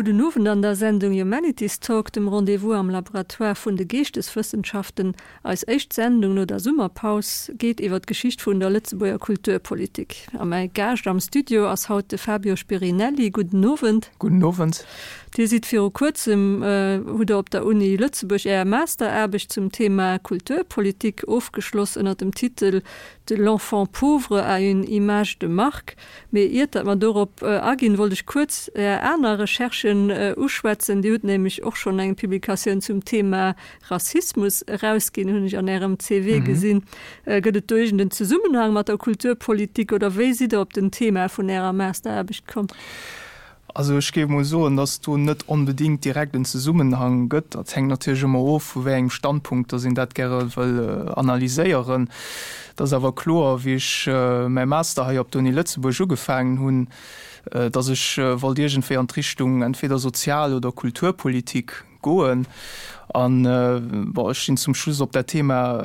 Gudden Owend an der Sendung Humanities Talk, dem Rendez-vous am Laboratoire vun de Geeschteswëssenschaften. Eis éischt Sendung no der Summerpaus geet iwwer d'Geschicht vun der Lëtzebuerger Kulturpolitik. A mäi Gaascht am Studio ass haut de Fabio Spirinelli. Gudden Owend. Gudden Owend. Dir sidd viru kuerzem, hutt Der op der Uni Lëtzebuerg Är Masteraarbecht zum Thema Kulturpolitik ofgeschloss ënner dem Titel De l'enfant pauvre à une image de marque. Mee iert datt mer dorop aginn, wollt ech kuerz Är aner Recherchen uschwätzen. Dir hutt nämlech och schonn eng Publikatioun zum Thema Rassismus erausginn, hunn ech an Ärem CV gesinn. Gëtt et do iergend en Zesummenhang mat der Kulturpolitik oder wéi sidd Der op den Thema vun Ärer Masteraarbecht komm? Also ech géif emol soen, datt do net onbedéngt direkt en Zesummenhang gëtt. Dat hänkt natierlech ëmmer of, vu wéi engem Standpunkt datt een dat gäre wëll analyséieren. Et ass awer kloer, wéi ech mäi Master hei op der Uni Lëtzebuerg ugefaangen hunn, datt ech wollt iergendwéi an d'Richtung entweder Sozial oder Kulturpolitik Goen. An, bon, ech sinn zum Schluss op dat Thema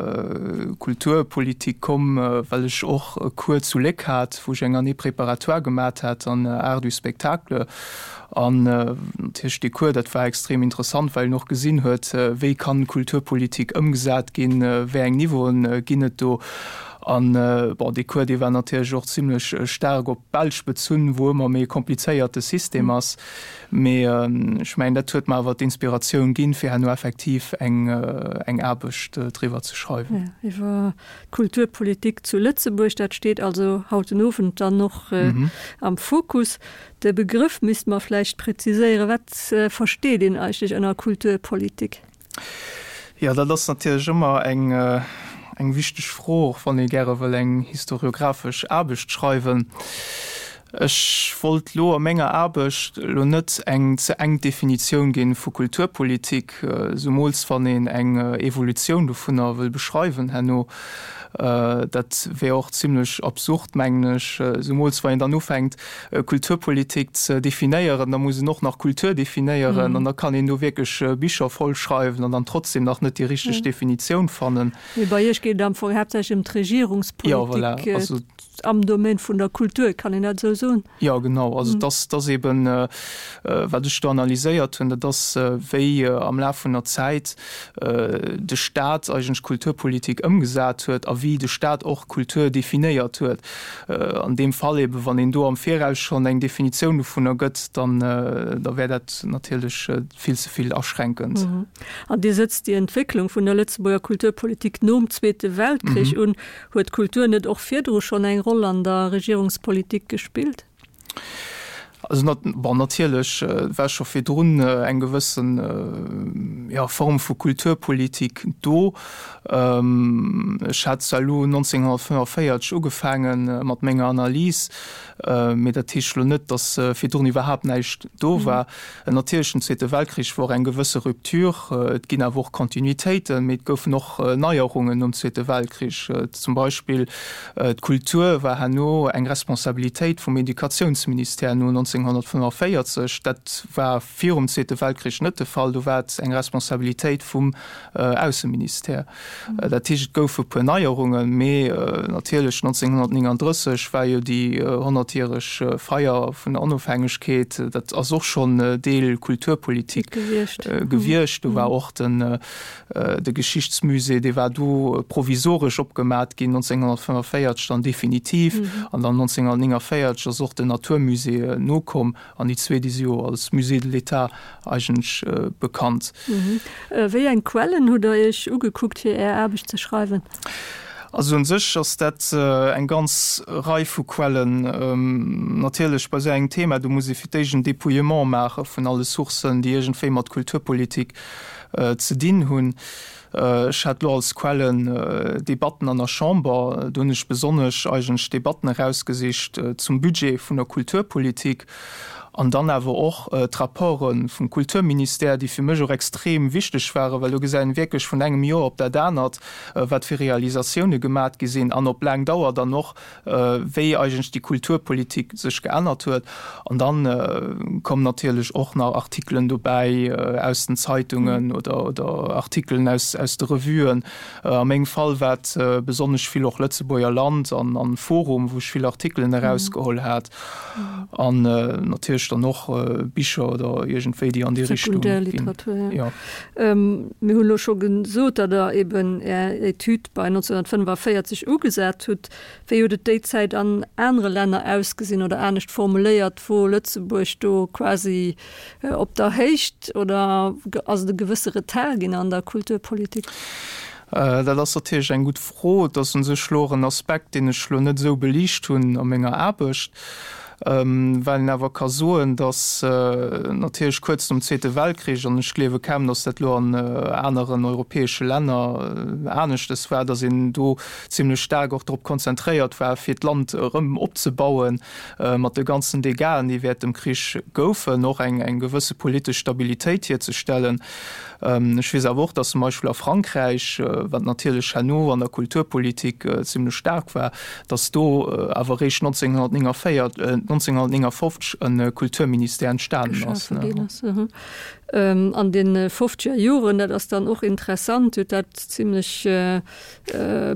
Kulturpolitik komm, well ech och e Cours zu Léck hat, wou ech eng Année préparatoire gemat hat an Arts du spectacle. An natierlech dee Cours, dat war extrem interessant, well een och gesinn huet, wéi kann Kulturpolitik ëmgesat ginn, wéi eng Niveauen ginn et do. An, bon, dee Cours, dee war natierlech och zimlech staark op d'Belsch bezunn, wou ëmmer méi e komplizéierte System ass. Mee ech mengen, dat huet mer awer d'Inspiratioun ginn, fir herno effektiv eng eng Aarbecht driwwer ze schreiwen. Jo, iwwer d'Kulturpolitik zu Lëtzebuerg, dat steet also haut den Owend dann och am Fokus. De Begrëff misste mer vläicht präziséieren. Wat versteet een eigentlech ënner Kulturpolitik? Jo, dat ass natierlech ëmmer eng, eng wichteg Fro, och wann ee gäre wëll eng historiographesch Aarbecht schreiwen. Ech wollt elo a menger Aarbecht elo net eng ze enk Definitioun ginn vu Kulturpolitik, zumools wann een eng Evolutioun dovunner wëll beschreiwen herno. Dat wär och zimlech absurd, mengen ech, zumools wann een dann ufänkt, Kulturpolitik ze definéieren, da muss een och nach Kultur definéieren an da kann een do wierklech Bicher voll schreiwen an dann trotzdem nach net déi richteg Definitioun fannen. Mee bei Iech geet et am Fong haaptsächlech ëm d'Regierungspolitik am Domaine vun der Kultur, kann een dat esou soen? Jo, genau. Also et ass, et ass eben, wat ech do analyséiert hunn, dat ass, wéi am Laf vun der Zäit de Staat eigentlech Kulturpolitik ëmgesat huet a wéi de Staat och Kultur definéiert huet. An deem Fall eben, wann een do am Viraus schonn eng Definitioun dovunner gëtt, dann da wär dat natierlech vill ze vill aschränkend. An Dir sëtzt déi Entwécklung vun der Lëtzebuerger Kulturpolitik nom Zweete Weltkrich un. Huet d'Kultur net och virdru schonn eng Roll an der Regierungspolitik gespillt? Also bon, natierlech war scho virdrun eng gewëssen, jo, Form vu Kulturpolitik do. Ech hat zwar elo 1945 ugefaange mat menger Analys, mee dat heescht elo net, datt virdrun iwwerhaapt näischt do war. Natierlech, den Zweete Weltkrich wor eng gewësse Rupture. Et ginn awer och Kontinuitéiten, mee et goufen och Neierungen nom Zweete Weltkrich. Zum Beispill d'Kultur war herno eng Responsabilitéit vum Educatiounsministère no 1945. Dat war virum Zweete Weltkrich net de Fall, do war et eng Responsabilitéit vum Ausseministère. Dat heescht, et goufe puer Neierungen, mee natierlech 1939 war jo déi honnertjäreg Feier vun der Onofhängegkeet, dat ass och schonn Deel Kulturpolitik gewiescht. Do war och den de Geschichtsmusée, dee war do provisoresch opgemat ginn, 1945 dann definitiv an dann 1949 ass och den Naturmusée nokomm. An déi zwee, déi si jo als Musée de l'État eigentlech bekannt. Wéi eng Quellen hutt Der Iech ugekuckt, fir Är Aarbecht ze schreiwen? Also un sech ass dat eng ganz Rei vu Quellen. Natierlech bei esou engem Thema, do muss ee fir d'éischt en Dépouillement maache vun alle Sourcen, déi iergendwéi mat Kulturpolitik ze dinn hunn. Ech hat elo als Quellen Debatten an der Chamber. Do hunn ech besonnesch eigentlech Debatten erausgesicht zum Budget vun der Kulturpolitik an dann awer och d'Rapporte vum Kulturministère, déi fir mech och extrem wichteg waren, well do gesäit een wierklech vun engem Joer op dat anert, wat fir Realisatioune gemat gi sinn an op laang Dauer dann och, wéi eigentlech déi Kulturpolitik sech geännert huet. An dann kommen natierlech och nach Artikelen dobäi aus den Zeitungen oder oder Artikelen aus aus de Revuen. A mengem Fall war et besonnesch vill och Lëtzebuerger Land an an Forum, wou ech vill Artikelen erausgeholl hat. An natierlech. natierlech dann och Bicher oder iergendwéi, déi an déi Richtung ginn. Sekundärliteratur, jo. Mir hunn elo scho gesot, datt Der eben Är Etüd bei 1945 ugesat hutt. Wéi huet et déi Zäit an anere Länner ausgesinn oder anescht formuléiert, wor Lëtzebuerg do quasi op der Héicht oder ass et e gewësse Retard ginn an der Kulturpolitik? Dat ass natierlech eng gutt Fro. Et ass u sech elo och en Aspekt, deen ech elo net esou beliicht hunn a menger Aarbecht, well een awer ka soen, datt natierlech kuerz nom Zweete Weltkrich, an ech gleewe kaum, datt dat elo an aneren europäesche Länner aneschtes war, datt een do zimlech staark och drop konzentréiert war, fir d'Land erëm opzebauen, mat de ganzen Dégâten, déi wäert dem Krich goufen, och eng gewësse politesch Stabilitéit hierzestellen. Ech weess awer och, datt zum Beispill a Frankräich, wat natierlech herno an der Kulturpolitik zimlech staark war, datt do awer eréischt 1949, 1959 e Kulturministère entstanen ass. An de fofzeger Joren, dat ass dann och interessant, huet dat zimlech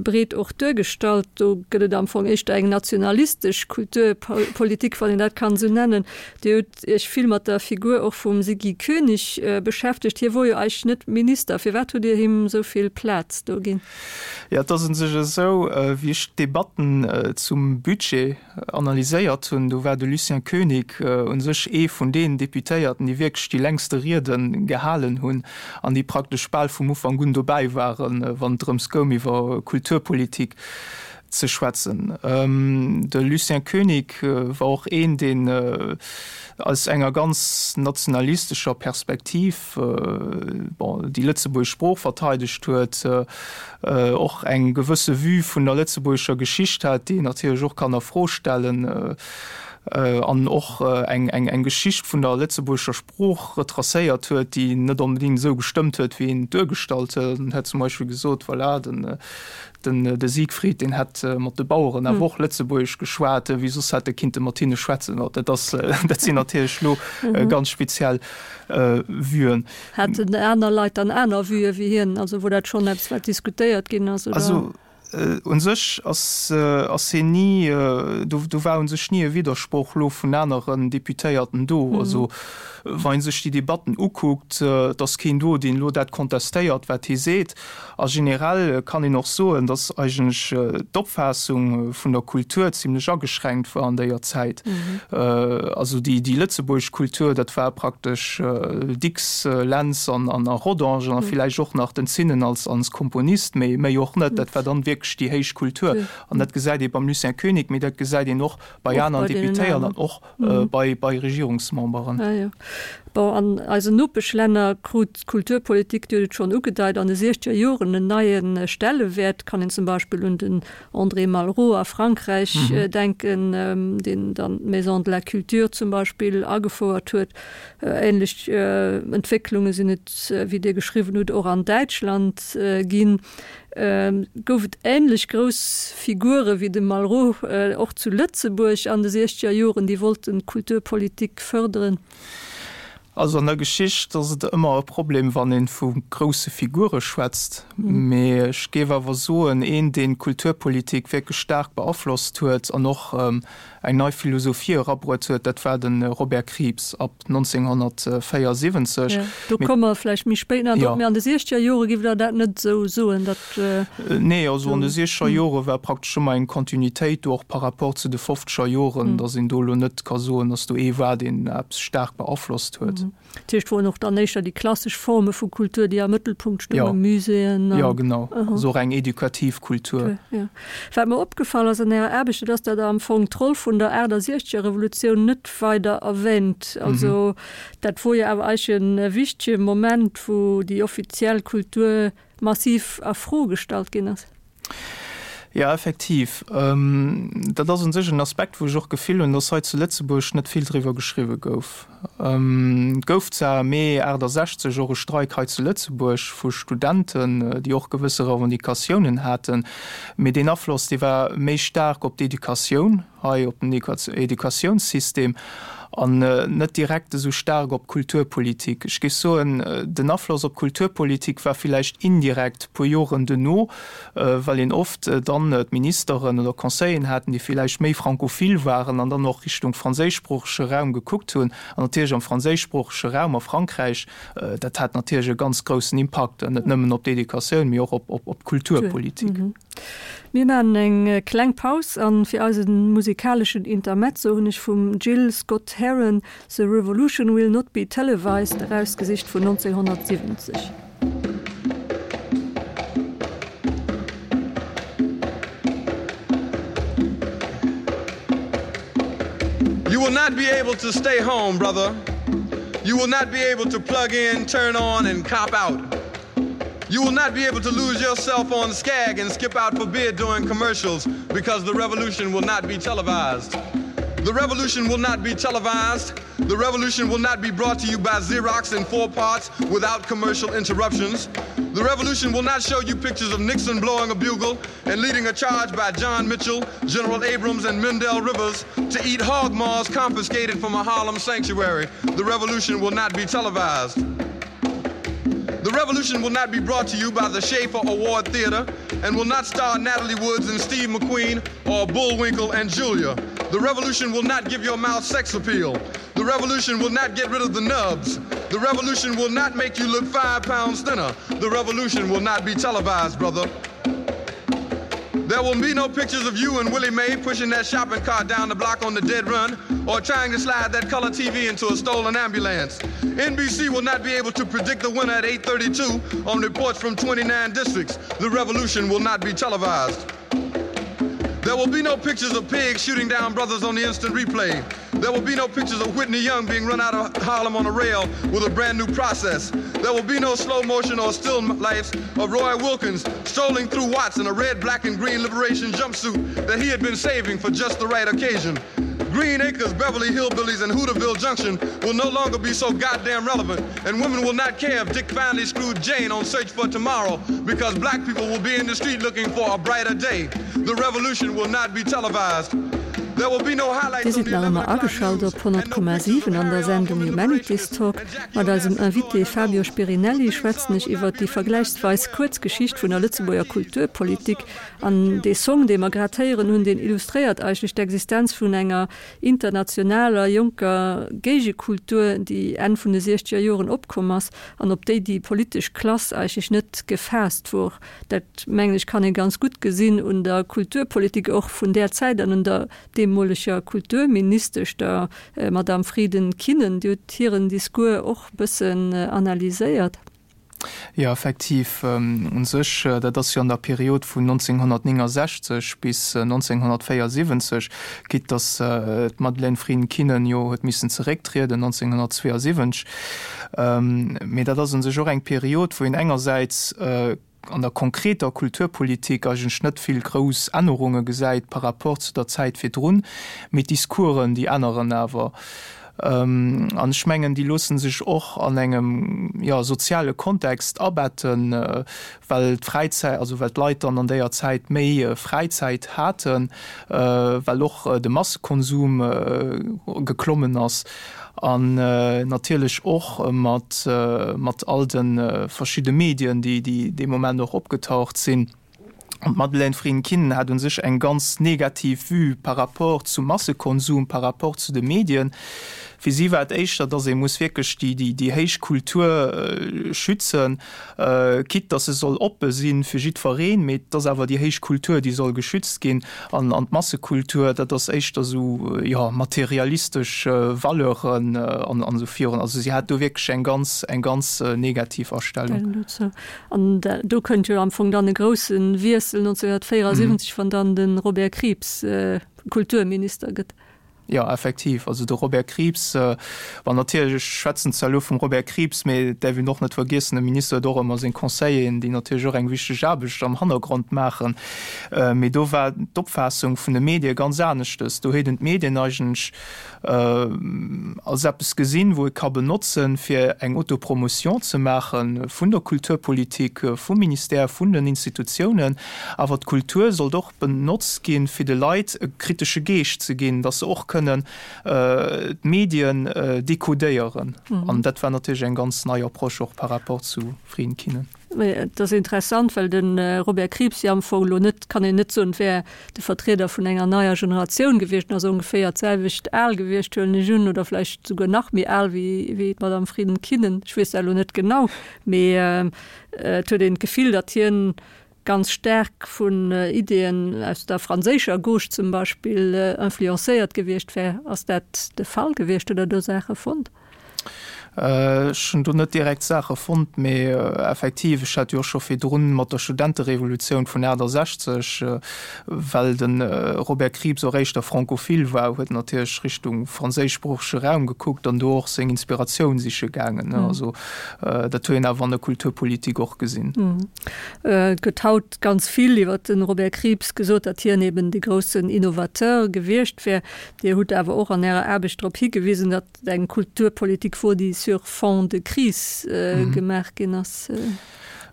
breet och duergestallt. Do gëtt et am Fong éischter eng nationalistesch Kulturpolitik, wann een dat kann esou nennen. Dir hutt Iech vill mat der Figur och vum Siggy Koenig beschäftegt. Hie wor jo eigentlech net Minister. Firwat hutt Dir him esou vill Plaz do ginn? Jo, et ass u sech esou, wéi ech d'Debatten zum Budget analyséiert hunn, do war de Lucien Koenig u sech ee vun deenen Deputéierten, déi wierklech déi längste Riede gehalen hunn an déi praktesch bal vum Ufank un dobäi waren, wann et drëms goung, iwwer Kulturpolitik ze schwätzen. De Lucien Koenig war och een, deen aus enger ganz nationalistescher Perspektiv, bon, déi lëtzebuergesch Sprooch verteidegt huet, och eng gewësse Vue vun der lëtzebuergescher Geschicht hat, déi een natierlech och kann a Fro stellen, an och eng eng Geschicht vun der lëtzebuergescher Sprooch retracéiert huet, déi net onbedéngt esou gestëmmt huet, wéi een et duergestallt huet. En huet zum Beispill gesot, voilà, den den de Siegfried, deen hätt mat de Baueren awer och Lëtzebuergesch geschwat, wéi soss hätt e kinnte mat hinne schwätzen. Dat ass, dat sinn natierlech elo ganz speziell Vuen. Haten aner Leit dann aner Vuë wéi hien? Also wor dat schonn eppes, wat diskutéiert ginn ass, oder? Also u sech ass ass hien ni, do do war u sech ni e Widdersproch elo vun aneren Deputéierten do. Also wa ee sech déi Debatten ukuckt, et ass keen do, deen elo dat kontestéiert, wat hie seet. A generell kann een och soen, dass eigentlech d'Opfaassung vun der Kultur zimlech ageschränkt war an déier Zäit. Also déi lëtzebuergesch Kultur, dat war praktesch Dicks, Lentz an a Rodange an villäicht och nach den Zinnen als als Komponist, mee méi och net. Dat war dann wierklech déi héich Kultur. An dat gesäit ee beim Lucien Koenig, mee dat gesäit een och bei aneren Deputéierten an och bei bei Regierungsmemberen. Ah jo. Bon, an eisen Nopeschlänner krut d'Kulturpolitik, Dir hutt et schonn ugedeit, an de siechzeger Joren en neie Stellewäert. Kann een zum Beispill un den André Malraux a Frankräich denken, deen dann d'Maison de la Culture zum Beispill agefouert huet. Ähnlech Entwécklunge sinn et, wéi Dir geschriwwen hutt, och an Däitschland ginn. Gouf et änlech grouss Figure wéi de Malraux och zu Lëtzebuerg an de siechzeger Joren, déi wollten d'Kulturpolitik fërderen? Also an der Geschicht ass et ëmmer e Problem, wann ee vu grousse Figure schwätzt. Mee ech géif awer soen, een, deen d'Kulturpolitik wierklech staark beaflosst huet an och eng nei Philosophie erabruet huet, dat war de Robert Krieps ab 1974. Jo, do komme mer vläicht méi spéit nach drop. Mee an de siechzeger Jore giff Der dat net esou soen, datt. Nee, also an de siechzeger Jore war praktesch ëmmer eng Kontinuitéit do, och par rapport zu de fofzeger Joren, datt een do elo net ka soen, datt do ee war, deen eppes staark beaflosst huet. Dat heescht, woren och dann éischter déi klassesch Forme vu Kultur, déi am Mëttelpunkt stoungen, Muséeën an. Jo, genau, also och eng edukativ Kultur. Jo. Wat mer opgefall ass an Ärer Aarbecht, dat ass, datt Der am Fong d'Roll vun der 68er Revolutioun net weider erwähnt. Also dat wor jo awer eigentlech e wichtege Moment, wou déi offiziell Kultur massiv a Fro gestallt ginn ass. Jo, effektiv. Dat ass u sech en Aspekt, wou ech och d'Gefill hunn, dass hei zu Lëtzebuerg net vill driwwer geschriwwe gouf. Et gouf zwar am Mee 68 och e Streik hei zu Lëtzebuerg vu Studenten, déi och gewësse Revendicatiounen haten, mee deen Afloss, dee war méi staark op d'Educatioun hei, op den Educatiounssystem. An net direkt esou staark op d'Kulturpolitik. Ech géif soen, den Afloss op d'Kulturpolitik war villäicht indirekt puer Joren duerno, well een oft dann d'Ministeren oder Conseilleren haten, déi villäicht méi francophil waren an dann och Richtung franséischsproochege Raum gekuckt hunn. An natierlech am franséischsproochege Raum a Frankräich, dat hat natierlech e ganz groussen Impakt, net nëmmen op d'Educatioun, mee och op d'Kulturpolitik. Mir maachen eng kleng Paus an fir eisen musikaleschen Intermezzo hunn ech vum Gil Scott-Heron The Revolution Will Not Be Televised erausgesicht vun 1970. You will not be able to stay home, brother. You will not be able to plug in, turn on and cop out. You will not be able to lose yourself on Skag and skip out for beer during commercials because the revolution will not be televised. The revolution will not be televised. The revolution will not be brought to you by Xerox in four parts without commercial interruptions. The revolution will not show you pictures of Nixon blowing a bugle and leading a charge by John Mitchell, General Abrams and Mendel Rivers to eat hog maws confiscated from a Harlem sanctuary. The revolution will not be televised. The revolution will not be brought to you by the Schaefer Award Theater and will not star Natalie Woods and Steve McQueen or Bullwinkle and Julia. The revolution will not give your mouth sex appeal. The revolution will not get rid of the nubs. The revolution will not make you look five pounds thinner. The revolution will not be televised, brother. There will be no pictures of you and Willie Mae pushing that shopping cart down the block on the dead run or trying to slide that color TV into a stolen ambulance. NBC will not be able to predict the winner at 8:32 on reports from 29 districts. The revolution will not be televised. There will be no pictures of pigs shooting down brothers on the instant replay. There will be no pictures of Whitney Young being run out of Harlem on a rail with a brand new process. There will be no slow motion or still lifes of Roy Wilkins strolling through Watts in a red, black and green liberation jumpsuit that he had been saving for just the right occasion. Green Acres, Beverly Hillbillies, and Hooterville Junction will no longer be so goddamn relevant, and women will not care if Dick finally screwed Jane on Search for Tomorrow because black people will be in the street looking for a brighter day. The revolution will not be televised. Dir sidd nach ëmmer ageschalt op 100,7 an der Sendung Humanities Talk. Mat eisem Invité Fabio Spirinelli schwätzen ech iwwert déi vergläichsweis kuerz Geschicht vun der Lëtzebuerger Kulturpolitik. An dee Song, dee mer grad héieren hunn, deen illustréiert eigentlech d'Existenz vun enger internationaler jonker Géigekultur, déi Enn vun de siechzeger Joren opkomm ass an op déi déi politesch Klass eigentlech net gefaasst wor. Dat, mengen ech, kann ee ganz gutt gesinn un der Kulturpolitik och vun där Zäit an un der deemoleger Kulturministesch, der Madame Frieden-Kinnen. Dir hutt hiren Discours och e bëssen analyséiert. Jo, effektiv. U sech, dat ass jo an der Period vun 1969 bis 1974, quitte datt d'Madeleine Frieden-Kinnen jo huet missen zerécktrieden 1972. Mee dat ass u sech och eng Period, wou een engersäits an der konkreter Kulturpolitik eigentlech net vill grouss Ännerunge gesäit par rapport zu der Zäit virdrun, mee d'Discoursen, déi änneren awer. An ech mengen, déi loosse sech och an engem, jo, soziale Kontext abetten, well d'Fräizäit, also well d'Leit dann an déier Zäit méi Fräizäit haten, well och de Massekonsum geklommen ass an natierlech och mat mat all de verschidde Medien, déi déi dee Moment och opgetaucht sinn. An d'Madeleine Frieden-Kinnen hat u sech eng ganz negativ Vue par rapport zum Massekonsum, par rapport zu de Medien. Fir si war et éischter, datt ee muss wierklech déi déi héich Kultur schützen, quitte datt se soll oppe si fir jiddwereen, mee et ass awer déi héich Kultur, déi soll geschützt ginn. An an d'Massekultur, dat ass éischter esou, jo, materialistesch Valeuren an an esou virun. Also si hat do wierklech eng ganz eng ganz negativ Astellung. An do kënnt jo am Fong dann e grousse Wiessel 1974, wann dann de Robert Krieps Kulturminister gëtt. Jo, effektiv. Also de Robert Krieps, bon natierlech, ech schwätzen zwar elo vum Robert Krieps, mee et däerf een och net vergiessen, e Minister huet och ëmmer seng Conseilleren, déi natierlech och eng wichteg Aarbecht am Hannergrond maachen. Mee do war d'Opfaassung vun de Medie ganz aneschtes. Do huet en d'Medien eigentlech als eppes gesinn, wou ee ka benotzen, fir eng Autopromotion ze maache vun der Kulturpolitik, vum Ministère, vun den Institutiounen. Awer d'Kultur sollt och benotzt ginn, fir de Leit e kritesche Geescht ze ginn, dass se och kënnen. kënnen d'Medien dekodéieren. An dat war natierlech eng ganz nei Approche och par rapport zu Frieden Kinnen. Et ass interessant, well de Robert Krieps jo am Fong elo net, kann een net soen, et wär de Vertrieder vun enger neier Generatioun gewiescht, en ass ongeféier d'selwecht al gewiescht, huelen ech un, oder vläicht souguer nach méi al wéi wéi d'Madame Frieden Kinnen, ech weess dat elo net genau, mee et huet een d'Gefill, datt hien ganz staark vun Ideeën aus der franséischer Gauche zum Beispill influencéiert gewiescht wär. Ass dat de Fall gewiescht? Hutt Der do Saache fonnt? Ech hunn do net direkt Saache fonnt, mee effektiv, ech hat jo och scho virdrun mat der Studenterevolutioun vun 68, well de Robert Krieps och éischter francophile war, huet en natierlech Richtung franséischsproochege Raum gekuckt an do och seng Inspiratioun siche gaangen. Also dat huet een awer an der Kulturpolitik och gesinn. Et gëtt haut ganz vill iwwer de Robert Krieps gesot, datt hien eben de groussen Innovateur gewiescht wär. Dir hutt awer och an Ärer Aarbecht drop higewisen, datt et eng Kulturpolitik wor, déi sur fond de crise gemaach ginn ass.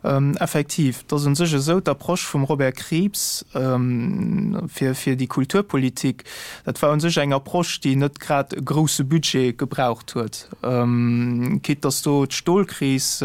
Effektiv, et ass u sech esou, d'Approche vum Robert Krieps fir fir déi Kulturpolitik, dat war u sech eng Approche, déi net grad e grousse Budget gebraucht huet, quitte datt do d'Stolkris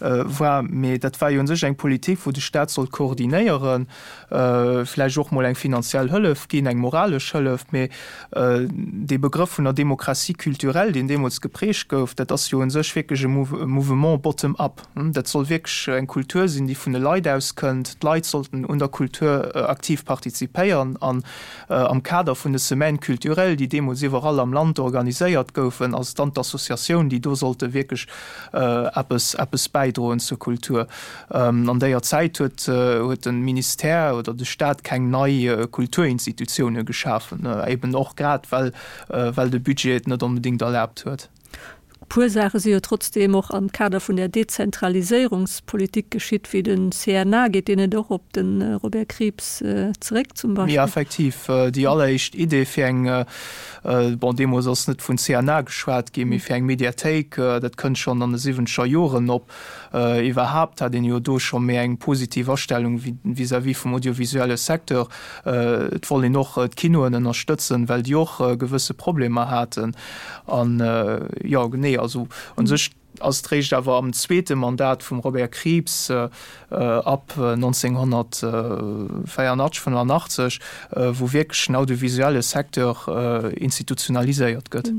war, mee dat war jo u sech eng Politik, wou de Staat sollt koordinéieren, vläicht och mol eng finanziell Hëllef ginn, eng moralesch Hëllef, mee dee Begrëff vun der Démocratie culturelle, deen deemools geprägt gouf, dat ass jo u sech wierklech e Mouvement bottom-up. Dat soll wierklech eng Kultur sinn, déi vun de Leit aus kënnt. D'Leit sollten un der Kultur aktiv partizipéieren an am Kader vun de Semaines culturelles, déi deemools iwwerall am Land organiséiert goufen, ass et dann d'Associatioun, déi do sollte wierklech eppes, eppes bäidroen zur Kultur. An déier Zäit huet, huet de Ministère oder de Staat keng nei Kulturinstitutioune geschafen, eben och grad well, well de Budget et net onbedéngt erlaabt huet. E puer Saache si jo trotzdeem och am Kader vun där Dezentraliséierungspolitik geschitt, wéi de CNA. Geet deen net och op de Robert Krieps zeréck zum Beispill? Jo, effektiv. Déi alleréischt Idee fir eng, bon, deemools ass net vun CNA geschwat ginn, mee fir eng Mediathéik, dat kënnt schonn an de siwwenzeger Joren op. Iwwerhaapt hat een jo do scho méi eng positiv Astellung vis-à-vis vum audiovisuelle Secteur. Et wollt een och d'Kinoen ënnerstëtzen, well déi och gewësse Problemer haten. An jo, genee, also u sech ass et réischt awer am zweete Mandat vum Robert Krieps, ab 1984, 85, wou wierklech den audiovisuelle Secteur institutionaliséiert gëtt.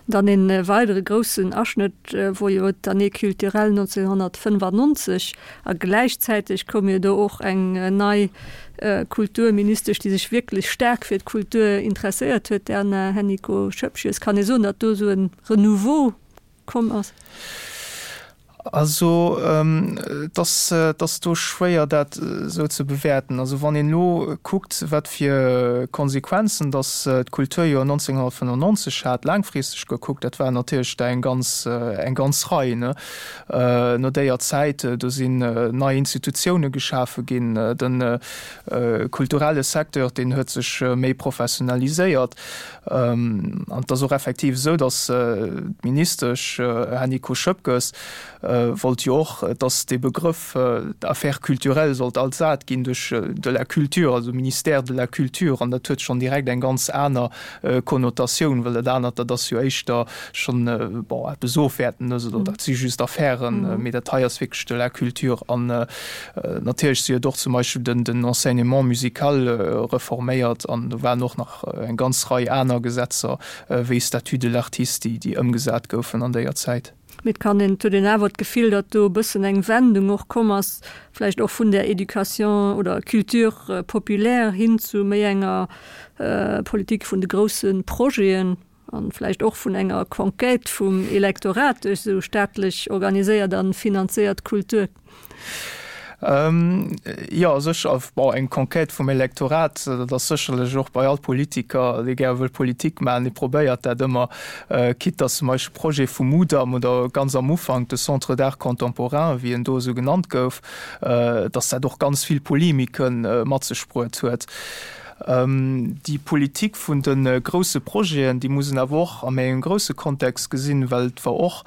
Dann een weidere groussen Aschnëtt wor jo d'Année culturelle 1995 a gläichzäiteg koum jo do och eng nei Kulturministesch, déi sech wierklech staark fir d'Kultur interesséiert huet, d'Erna Hennicot-Schoepges. Kann ee soen, datt do esou e Renouveau komm ass? Also et ass, et ass do schwéier dat esou ze bewäerten. Also wann een elo kuckt, wat fir Konsequenzen datt d'Kulturjoer 1995 hat, laangfristeg gekuckt, dat waren natierlech der eng ganz, eng ganz Rei, ne. No déier Zäit, do sinn nei Institutioune geschafe ginn, de kulturelle Secteur, deen huet sech méi professionaliséiert. An et ass och effektiv esou, datt d'Ministesch Hennicot Schoepges wollt jo och, datt dee Begrëff Affaires culturelles sollt ersat ginn duerch de la culture, also Ministère de la culture. An dat huet schonn direkt eng ganz aner Konnotatioun, well dat anert, dat ass jo éischter schonn, bon, eppes Ofwäertendes oder dat si just Affären, mee dat hei ass wierklech de la culture. An natierlech, si huet och zum Beispill den Enseignement musical reforméiert an do waren och nach eng ganz Rei aner Gesetzer wéi Statut de l'artiste, déi déi ëmgesat goufen an déier Zäit. Mee et kann een, et huet een awer d'Gefill, datt do e bëssen eng Wendung och komm ass, vläicht och vun där Éducation oder Culture populaire hin zu méi enger Politik vun de grousse Projeten an vläicht och vun enger Conquête vum Elektorat duerch esou staatlech organiséiert a finanzéiert Kultur. Jo, sécher. Bon, eng Conquête vum Elektorat, dat ass sécherlech och bei all Politiker, dee gäre wëll Politik maachen, dee probéiert dat ëmmer, quitte datt zum Beispill Projet vum Mudam oder ganz am Ufank de Centre d'art contemporain, wéi en do esou genannt gouf, datt dat och ganz vill Polemike mat sech bruet huet. Déi Politik vun de grousse Projeten, déi muss een awer och a méi engem grousse Kontext gesinn, well et war och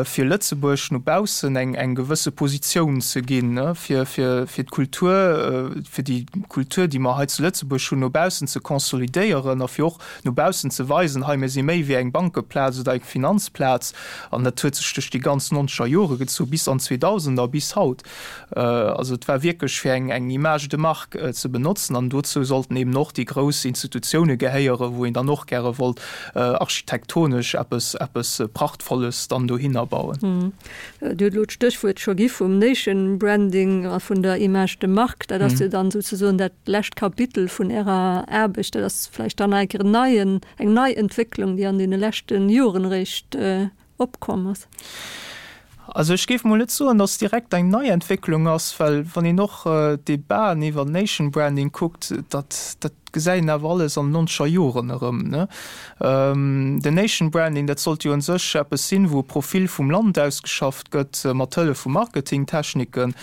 fir Lëtzebuerg no baussen eng eng gewësse Positioun ze ginn, fir fir fir d'Kultur, fir déi Kultur, déi mer hei zu Lëtzebuerg hunn, no baussen ze konsolidéieren a fir och no baussen ze weisen, hei mir si méi wéi eng Bankeplaz oder eng Finanzplaz. An dat huet sech duerch déi ganz nonzeger Jore gezu bis an d'Zweedausender, bis haut. Also et war wierklech fir eng eng Image de marque ze benotzen an dozou sollten eben och déi grouss Institutioune gehéieren, wou een dann och gäre wollt architektonesch eppes eppes Prachtvolles dann dohinner bauen. Dir hutt elo d'Stéchwuert scho gi vum Nation Branding a vun der Image de marque. Dat ass jo dann souzesoen dat lescht Kapitel vun Ärer Aarbecht. Dat ass vläicht dann nach eng Kéier en neien, eng nei Entwécklung, déi an deene leschte Joren eréischt opkomm ass. Also ech géif mol net soen, datt direkt eng nei Entwécklung ass, well wann een och d'Debaten iwwer Nation Branding kuckt, dat dat gesäit een awer alles an den nonzeger Joren erëm, ne. Den Nation Branding, dat sollt jo un sech eppes sinn, wou e Profil vum Land ausgeschafft gëtt mat Hëllef vu Marketingtechniken.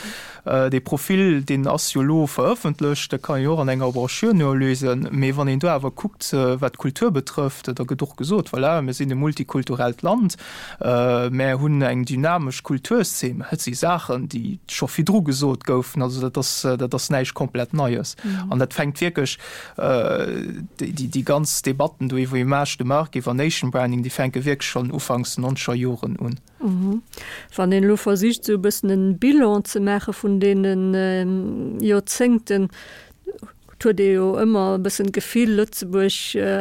Dee Profil, deen ass jo elo verëffentlecht, dat kann een jo och an enger Brochure nolesen. Mee wann een do awer kuckt, wat d'Kultur betrëfft, da gëtt och gesot, voilà, mir sinn e multikulturellt Land, Mär hunn eng dynamesch Kulturszeen. Dat si Saachen, déi scho virdru gesot goufen. Also dat ass, dat ass näischt komplett Neies. An dat fänkt wierklech, déi ganz Debatten do iwwer Image de marque, iwwer Nation Branding, déi fänke wierklech schonn ufanks nonzeger Joren un. Wann een elo versicht, esou e bëssen en Bilan ze maache vun deene Joerzéngten, Et huet ee jo ëmmer e bëssen d'Gefill, Lëtzebuerg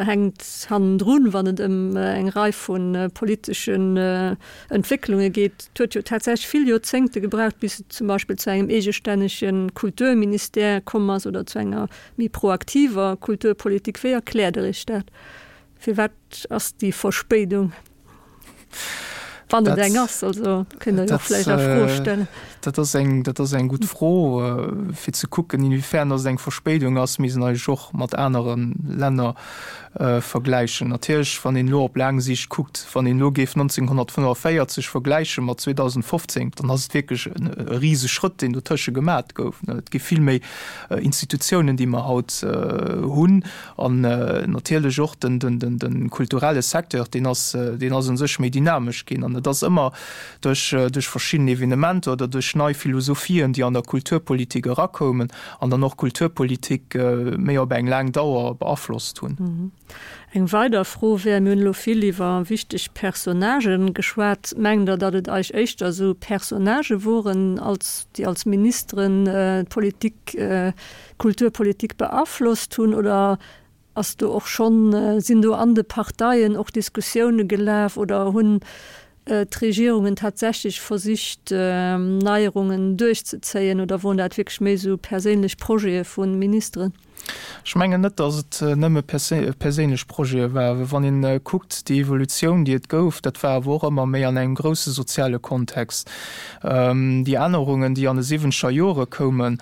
hänkt hannendrun, wann et ëm eng Rei vu politeschen Entwécklunge geet. Et huet jo tatsächlech vill Joerzéngte gebraucht, bis et zum Beispill zu engem eegestännege Kulturministère komm ass oder zu enger méi proaktiver Kulturpolitik. Wéi erkläert Der Iech dat? Firwat ass déi Verspéidung? Wann et eng ass, also kënnt Der jo vläicht a Fro stellen. Dat ass eng, dat ass eng gutt Fro. Fir ze kucken, inwiefern datt et eng Verspéidung ass, misst een eigentlech och mat anere Länner vergläichen. Natierlech, wann een elo op laang Siicht kuckt, wann een elo géif 1945 vergläiche mat 2015, dann ass et wierklech e Riseschrëtt, deen dotësche gemat gouf. Et gi vill méi Institutiounen, déi mer haut hunn. An natierlech och de kulturelle Secteur, deen ass, deen ass u sech méi dynamesch ginn. An et ass ëmmer duerch, duerch verschidden Evenementer oder duerch nei Philosophien, déi an der Kulturpolitik erakoumen an dann och d'Kulturpolitik méi op eng laang Dauer beaflosst hunn. Eng weider Fro wär, Mir hunn elo vill iwwer wichteg Personnagen geschwat. Mengt Der, datt et eich éischter esou Personnagë woren, als, déi als Ministeren d'Politik Kulturpolitik beaflosst hunn oder ass do och schonn, sinn do an de Parteien och Diskussioune gelaf oder hunn d'Regierungen tatsächlech versicht Neierungen duerchzezéien oder woren dat wierklech méi esou perséinlech Projete vu Ministeren? Ech mengen net, datt et nëmme perséinlech Projete waren. Wann een kuckt déi Evolutioun déi et gouf, dat war awer och ëmmer méi an engem grousse soziale Kontext. Déi Ännerungen déi an de siwwenzeger Jore koumen,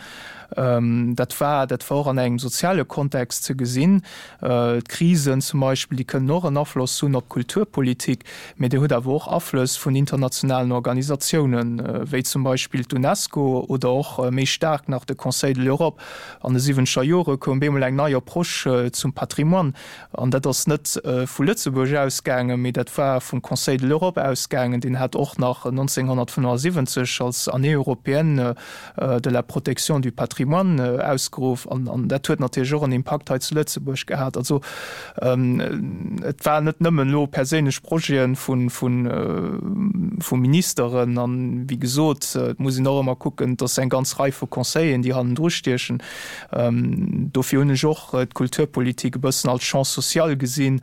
Dat war, dat war och an engem soziale Kontext ze gesinn. D'Krisen zum Beispill, déi kënnen och en Afloss hunn op d'Kulturpolitik, mee Dir hutt awer och Aflëss vun internationalen Organisatiounen, wéi zum Beispill d'UNESCO oder och méi staark nach de Conseil de l'Europe. An de siwwenzeger Jore koum bemol eng nei Approche zum Patrimoine. An dat ass net vu Lëtzebuerg ausgaangen, mee dat war vum Conseil de l'Europe ausgaangen. Deen hat och nach 1975 als Année européenne de la protection du patrimoine ausgeruff. An dat huet natierlech och en Impakt hei zu Lëtzebuerg gehat. Also et war net nëmmen elo perséinlech Projete vu Ministeren. An, wéi gesot, et muss een och ëmmer kucken, et ass eng ganz Rei vu Conseilleren, déi hannendru stiechen. Dofir hunn ech och d'Kulturpolitik e bëssen als Champ social gesinn,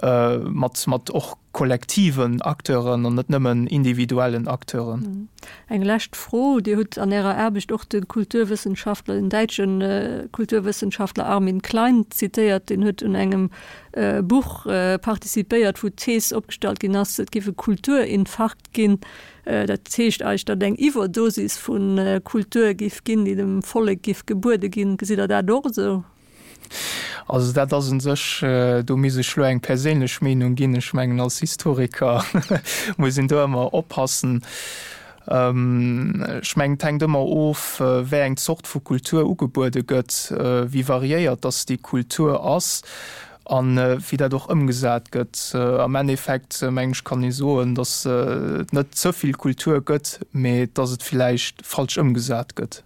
mat, mat och kollektiven Acteuren an net nëmmen individuellen Acteuren. Eng lescht Fro, Dir hutt an Ärer Aarbecht och de Kulturwëssenschaftler, den däitsche Kulturwëssenschaftler Armin Klein zitéiert. Deen huet un engem Buch participéiert, wou d'Thees opgestallt ginn ass, et géif e Kulturinfarkt ginn. Dat heescht eigentlech, datt eng Iwwerdosis vu Kultur géif ginn, déi dem Vollek géif gebuede ginn. Gesitt Der dat och esou? Also dat ass u sech, do misst ech elo eng perséinlech Meenung ginn. Ech mengen, als Historiker muss een do ëmmer oppassen. Ech mengen, et hänkt ëmmer of, wéi eng Zort vu Kultur ugebuede gëtt, wéi variéiert dass déi Kultur ass a wéi dat och ëmgesat gëtt. Am Endeffekt, mengen ech, kann ee soen, dass et net ze vill Kultur gëtt, mee dass et villäicht falsch ëmgesat gëtt.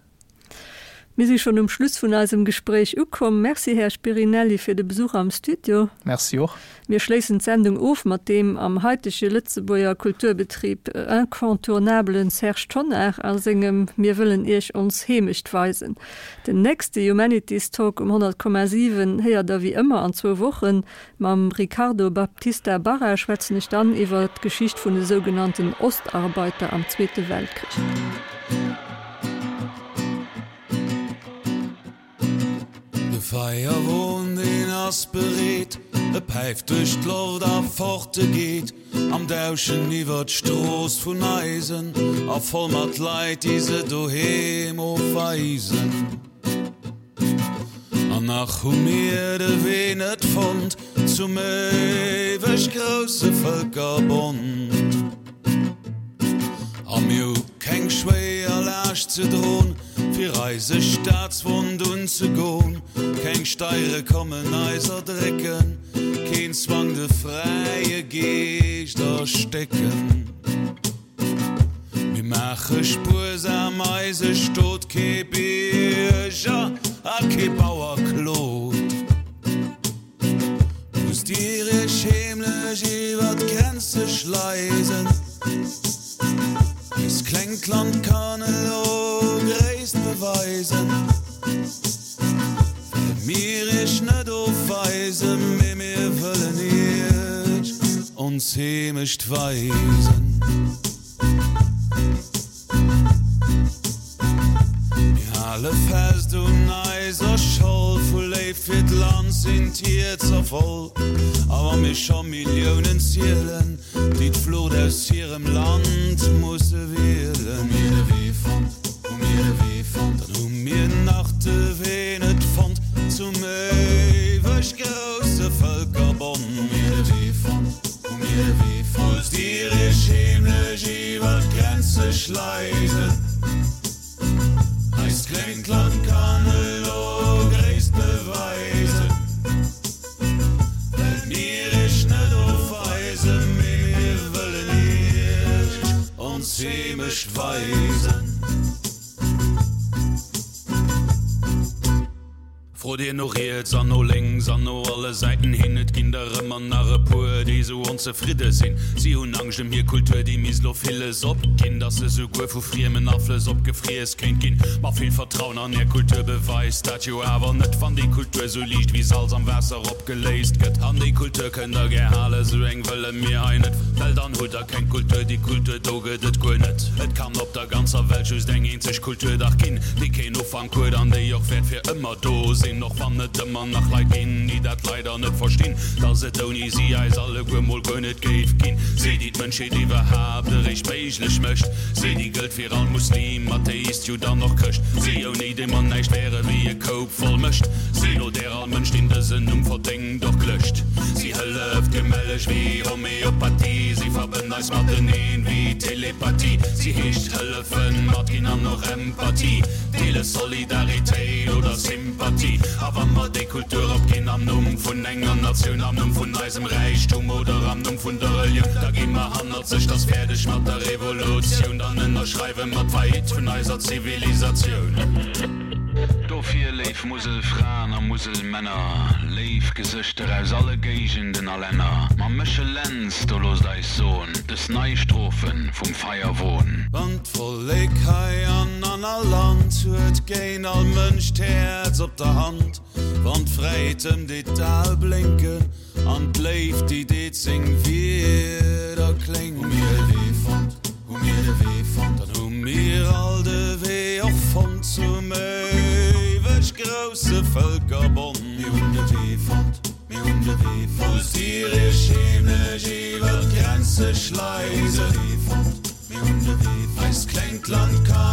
Mir si schonn um Schluss vun eisem Gespréich ukomm. Merci, Här Spirinelli, fir de Besuch am Studio. Merci och. Mir schléissen d'Sendung of mat deem am haitege Lëtzebuerger Kulturbetrib incontournabelen Serge Tonnar a sengem Mir wëllen Iech ons Heemecht weisen. Den nächste Humanities Talk um 100,7 héiert der wéi ëmmer an zwou Wochen. Mam Ricardo Baptista Barra schwätzen ech dann iwwer d'Geschicht vun de sougenannten Ostarbeiter am Zweete Weltkrich. De Feierwon deen ass bereet, e päift duerch d'Loft a fort e geet am Dauschen iwwer d'Strooss vun Eisen a voll mat Leit déi se doheem ofweisen. An nach hu mir de Wee net fonnt zum éiweg grousse Vëlkerbond. A mir hu keng schwéier Laascht ze dron, fir eise Staatswond unzegon. Keng Steiere kommen eis erdrécken, keen Zwang de fräie Geescht erstécken. Mir maache spuersam eise Stot, kee Bierger a kee Bauer klot. Musst Dir Iech heemlech iwwer d'Grenze schleisen? Eist klengt Land kann elo Gréisst beweisen, Well mir Iech net ofweisen, mee mir wëllen Iech ons Heemecht weisen. Mir hale fest un eiser Scholl, vu Léift fir d'Land sinn d'Hierzer voll. A wa mir scho Milliounen zielen, déi d'Flucht aus hirem Land musse wielen. Hu mir de Wee fonnt, hu mir de Wee fonnt, dann hu mir nach de Wee net fonnt zum éiweg grousse Vëlkerbond. Hu mir de Wee fonnt. Musst Dir Iech heemlech iwwer d'Grenze schleisen? Eist klengt Land kann elo Gréisst beweisen, Well mir Iech net ofweisen, mee mir wëllen Iech ons Heemecht weisen. Frot Dir no riets an no lénks an no alle Säiten hin, et ginn der ëmmer nach e puer, déi sou onzefridde sinn. Si hunn Angscht ëm hir Kultur, déi misst lo villes opginn, dass se souguer vu friemen Aflëss opgefriess kéint ginn. Ma vill Vertrauen an är Kultur beweist dat jo awer net, wann déi Kultur sou liicht wéi Salz am Waasser opgeléist gëtt. An déi Kultur kënnt der gär halen, sou eng wëlle mir hei net, well dann hutt der keng Kultur. Déi Kultur do gëtt et guer net. Et kann op der ganzer Welt just eng eenzeg Kultur dach ginn, déi keen Ufank. Huet an déi och wäert fir ëmmer do sinn, och wann et ëmmer nach Leit ginn, déi dat leider net verstinn, dass et ouni si eis alleguer mol guer net géif ginn. Si, déi d'Mënschheet iwwerhaapt eréischt méiglech mécht, si, déi gëllt fir all Muslim, Atheist, Judd an och Chrëscht, si, ouni déi mer näischt wäre wéi e Koup voll Mëscht, si, no där all Mënsch, deen dësen Numm verdéngt, och klëscht. Si hëlleft gemelleg wéi Homeopathie, si verbënnt eis mateneen wéi Telepathie, si heescht hëllefen, matginn an och Empathie, deele Solidaritéit oder Sympathie. A wa mer déi Kultur opginn am Numm vun enger Natioun, am Numm vun eisem Räichtum oder am Numm vun der Relioun, da gi mer hannerzeg, 't ass fäerdeg mat der Revolutioun, dann ënnerschreiwe mer d'Faillite vun eiser Zivilisatioun. Dofir, léif Muselfraen a Muselmänner, léif Gesëschter aus alle Géigenden a Länner, mam Méchel Lentz, do loosst eis soen, dës nei Strophe vum Feierwon. Wann d'Vollek hei an an all Land huet géint all Mënsch d'Häerz op der Hand, wann d'Fräiheet ëm deet d'Ae blénken an d'Léift déi deet seng Wierder kléngen. Hu mir de Wee fonnt, hu mir de Wee fonnt, dann hu mir all de Wee och fonnt zum éiweg grousse Vëlkerbond. Mir hunn de Wee fonnt. Mir hunn de Wee fonnt. Musst Dir Iech heemlech iwwer d'Grenze schleisen? Mir hunn de Wee fonnt. Eist klengt Land kann.